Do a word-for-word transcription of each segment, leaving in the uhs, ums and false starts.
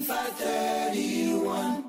Five thirty-one.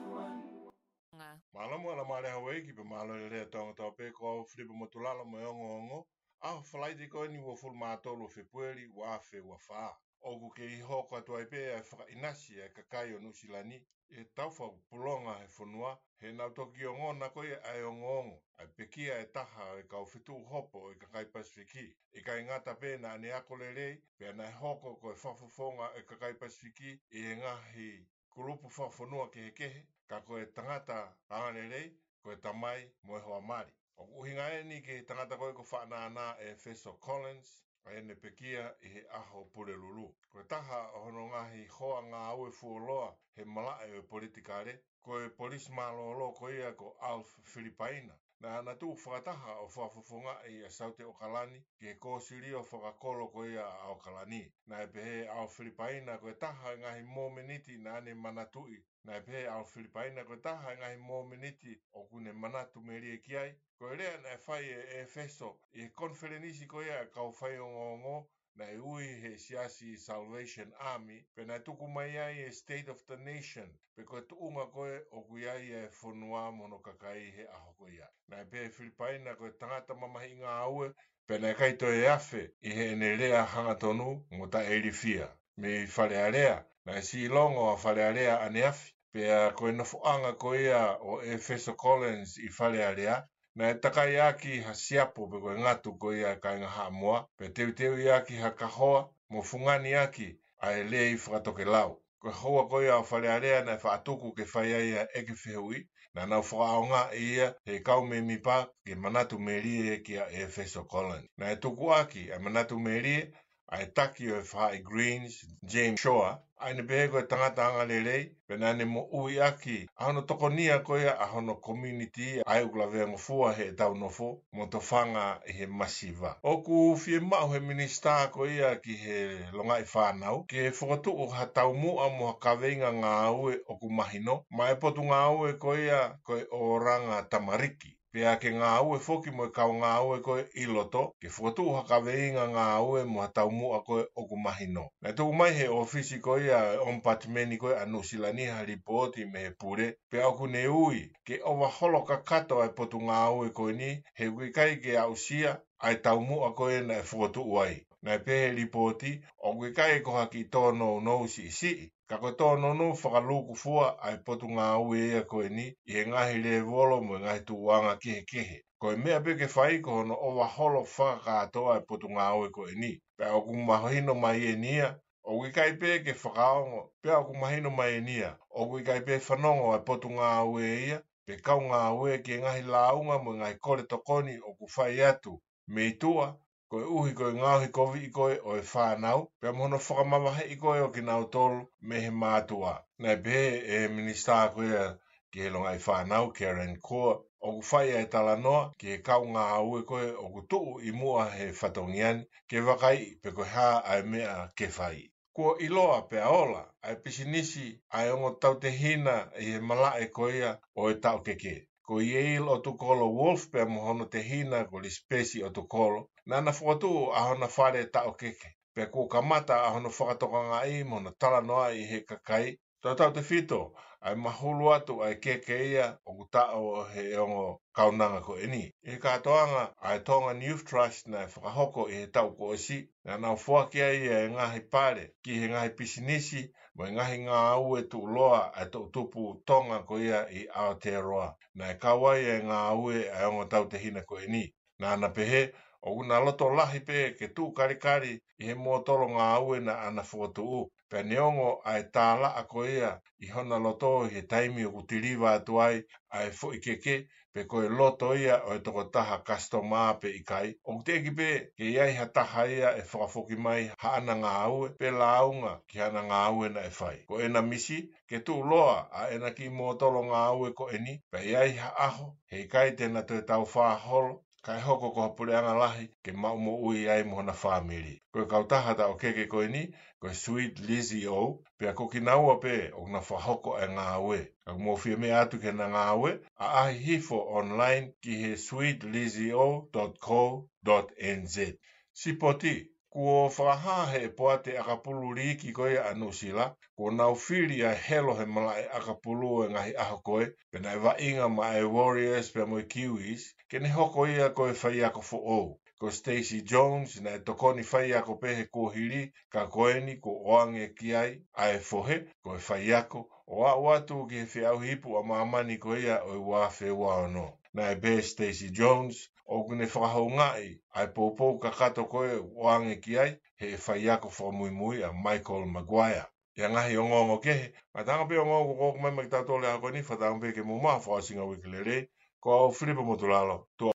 Mālō mo ala male Hauaiki pea mālō e lea Tonga tau pē, ko au Filipe Motulalo mo e ongoongo. ʻAho Falaite ko eni uofulu mā tolu Fēpueli ua afe ua fā. ʻOku kei hoko atu ai pē ʻa e fakaʻinasi ʻa e kakai ʻo Nuʻusila ni ʻi he tau fakapulonga he fonua, he naʻa nau toki ongona ko ia ʻa e ongoongo ʻa e pekia ʻe taha ʻo e kau fetuʻu hopo ʻo e kakai Pasifiki. ʻIkai ngata pē naʻa ne ako lelei, pea naʻe hoko ko e fakafofonga ʻo e kakai Pasifiki ʻi he ngaahi kulupu fakafonua kehekehe, ka ko e tangata angalelei, ko e tamai mo e hoa mali. ʻOku ʻuhinga eni ki he tangata ko ē ko Faʻanānā ʻEfeso Collins, ʻa ʻene pekia ʻi he ʻaho Pulelulu. Ko e taha ʻo hono ngaahi hoa ngāue fuoloa he malaʻe ʻo e politikale, ko e polisi mālōlō ko ia ko Alf Filipaina. Naʻa na tuʻu fakataha ʻo fakafofongaʻi ʻa Saute ʻAokalani ki he kōsilio fakakolo ko ia ʻa ʻAokalani. Naʻe pehē ʻe Alf Filipaina ko e taha e ngaahi mōmeniti naʻa ne manatuʻi. Naʻe pehē ʻe Alf Filipaina ko e taha e ngaahi mōmeniti ʻoku ne manatu melie ki ai, ko e lea naʻe fai ʻe ʻEfeso ʻi he konifelenisi ko ia ʻa e kau faiongoongo, naʻe ui he siasi Salvation Army, pea naʻe tuku mai ai e State of the Nation, pe ko e tuʻunga ko ē ʻoku ʻi ai e fonua mo hono kakai he ʻaho ko ia. Naʻe pehē ʻe Filipaina ko e tangata mamahiʻi ngāue, pea naʻe ʻikai toe afe ʻi heʻene lea hangatonu mo taʻeilifia. Mei Fale Alea, naʻe siʻilongo ʻa Fale Alea ʻaneafi, pea ko e nofoʻanga ko ia ʻo ʻEfeso Collins ʻi Fale Alea, naʻe takai ʻaki ha siapo pe ko e ngatu ko ia ʻa e kāinga Haʻamoa, pea teuteuʻi ʻaki ha kahoa mo fungani ʻaki ʻa e lei fakatokelau. Ko e houa ko ia ʻo Fale Alea naʻe faʻa tuku ke fai ai ʻa e ʻeke fehuʻi, naʻa nau fakaʻaongaʻi ia he kau mēmipa ke manatu melie kia ʻEfeso Collins. Naʻe tuku ʻaki ʻa e manatu melie ʻa e taki ʻo e faʻahi Greens, James Shore, ʻa ʻene pehē ko e tangata angalelei, pea naʻa ne moʻui ʻaki ʻa hono tokonia ko ia ʻa hono community ʻa ia ʻoku laveangofua heʻetau nofo mo tofanga ʻi he masiva. ʻOku fiemaʻu he minisitā ko ia ki he longaʻi fānau ke fokotuʻu ha taumuʻa mo ha kaveinga ngāue ʻoku mahino maʻá e potungāue ko ia ko e ʻOlanga Tamariki. Pea ke ngāue foki mo e kau ngāue ko ē ʻi loto, ke fokotuʻu ha kaveinga ngāue mo ha taumuʻa ko ē ʻoku mahino. Naʻe tuku mai he ʻōfisi ko ia e ʻOmipatimeni ko ē ʻa Nuʻusila ni ha lipooti mei he pule, pea ʻoku ne ui ke ʻova holo kakato ʻa e potungāue ko eni, he ʻoku ʻikai ke aʻusia ʻa e taumuʻa ko ē naʻe fokotuʻu ai. Naʻe pehē ʻe he lipooti, ʻoku ʻikai ko ha kiʻi tōnounou siʻisiʻi, ka ko e tōnounou fakalūkufua ʻa e potungāue ia ko eni ʻi he ngaahi lēvolo mo e ngaahi tuʻuʻanga kehekehe. Ko e meʻa pē ke fai ko hono ʻova holo fakakātoa ʻa e potungāue ko eni. Pea ʻoku mahino mai eni ia, ʻoku ʻikai pē ke fakaongo, pea ʻoku mahino mai eni ia, ʻoku ʻikai pē fanongo ʻa e potungāue ia, pe kau ngāue ki he ngaahi lāunga mo e ngaahi kole tokoni ʻoku fai atu mei tuʻa, koeʻuhi ko e ngaohi koviʻi ko ē ʻo e fānau, pea mo hono fakamavaheʻi ko ē ʻo kinautolu mei he mātuʻa. Naʻe pehē ʻe he minisitā ko ia ki he longaʻi fānau, Karen Kua, ʻoku fai ʻa e talanoa ki he kau ngāue ko ē ʻoku tuʻu ʻi muʻa he fatongia ni, ke vakaiʻi pe ko e hā ʻa e meʻa ke fai. Kuo ʻiloa pea ola ʻa e pisinisi ʻa e ongo tautehina ʻi he malaʻe ko ia ʻo e taʻokeke. Ko Yale ʻOtukolo Wolf pea mo hono tehina ko Lisipesi ʻOtukolo, naʻa na fokotuʻu ʻa hona fale taʻokeke. Pea kuo kamata ʻa hono fakatokangaʻi mo hono talanoaʻi ʻe he kakai, tautautefito ʻa e mahulu atu ʻa e keke ia ʻoku taʻo ʻe he ongo kaunanga ko eni. ʻI he kātoanga ʻa e Tongan Youth Trust naʻe fakahoko ʻi he taʻu kuo ʻosi, naʻa nau foaki ai ʻa e ngaahi pale ki he ngaahi pisinisi mo e ngaahi ngāue tuʻuloa ʻa e toʻutupu Tonga ko ia ʻi Aotearoa. Naʻe kau ai ʻa e ngāue ʻa e ongo tautehina ko eni. Naʻa na pehē, ʻoku na loto lahi pē ke tuʻu kalikali ʻi he mōtolo ngāue naʻa na fokotuʻu. Pea neongo ʻa e tālaʻa ko ia ʻi hona loto ʻi he taimi ʻoku tiliva atu ai ʻa e foʻi keke, pe ko e loto ia ʻo e tokotaha kasitoma pe ʻikai, ʻoku teʻeki pē ke ʻi ai ha taha ia ʻe fakafoki mai haʻana ngāue, pe lāunga ki hana ngāue naʻe fai. Ko ʻena misi, ke tuʻuloa ʻa ʻena kiʻi mōtolo ngāue ko eni, pea ʻi ai ha ʻaho, heʻikai te na toe taufā holo, kae hoko ko ha puleʻanga lahi ke maʻu moʻui ai mo hona fāmili. Ko e kautaha taʻokeke ko eni, ko e Sweet Lizzie O, pea ko kinaua pē ʻoku na fakahoko ʻa e ngāue. Ka ʻoku mou fie meʻa atu ki hena ngāue, ʻaʻahi hifo online ki he sweet lizzie o dot co dot N Z. Sipoti, Kuo fakahā ʻe he poate ʻakapulu liiki ko ia ʻa Nuʻusila, kuo nau fili ʻa e helo he malaʻe ʻakapulu ʻo e ngaahi ʻaho ko ē, pea naʻe vaʻinga maʻa e Warriors pea mo e Kiwis, ke ne hoko ia ko e faiako foʻou. Ko Stacey Jones naʻe tokoni faiako pē he kuohili, ka ko eni kuo ʻoange ki ai ʻa e fohe ko e faiako, ʻo aʻu atu ki he feʻauhi ipu ʻa māmani ko ia ʻo e ua afe ua ono. Naʻe pehē ʻe Stacey Jones ʻoku ne fakahoungaʻi ʻa e poupou kakato ko ē ʻoange ki ai ʻe he faiako fakamuimui ʻa Michael Maguire. ʻI he ngaahi ongoongo kehe, ngataʻanga pē ongoongo ko ʻoku ʻomai maʻa kitautolu he ʻaho ko eni, fakatauange pē ke mou maʻu ha fakaʻosinga uike lelei. Ko au Filipe Motulalo, tuʻa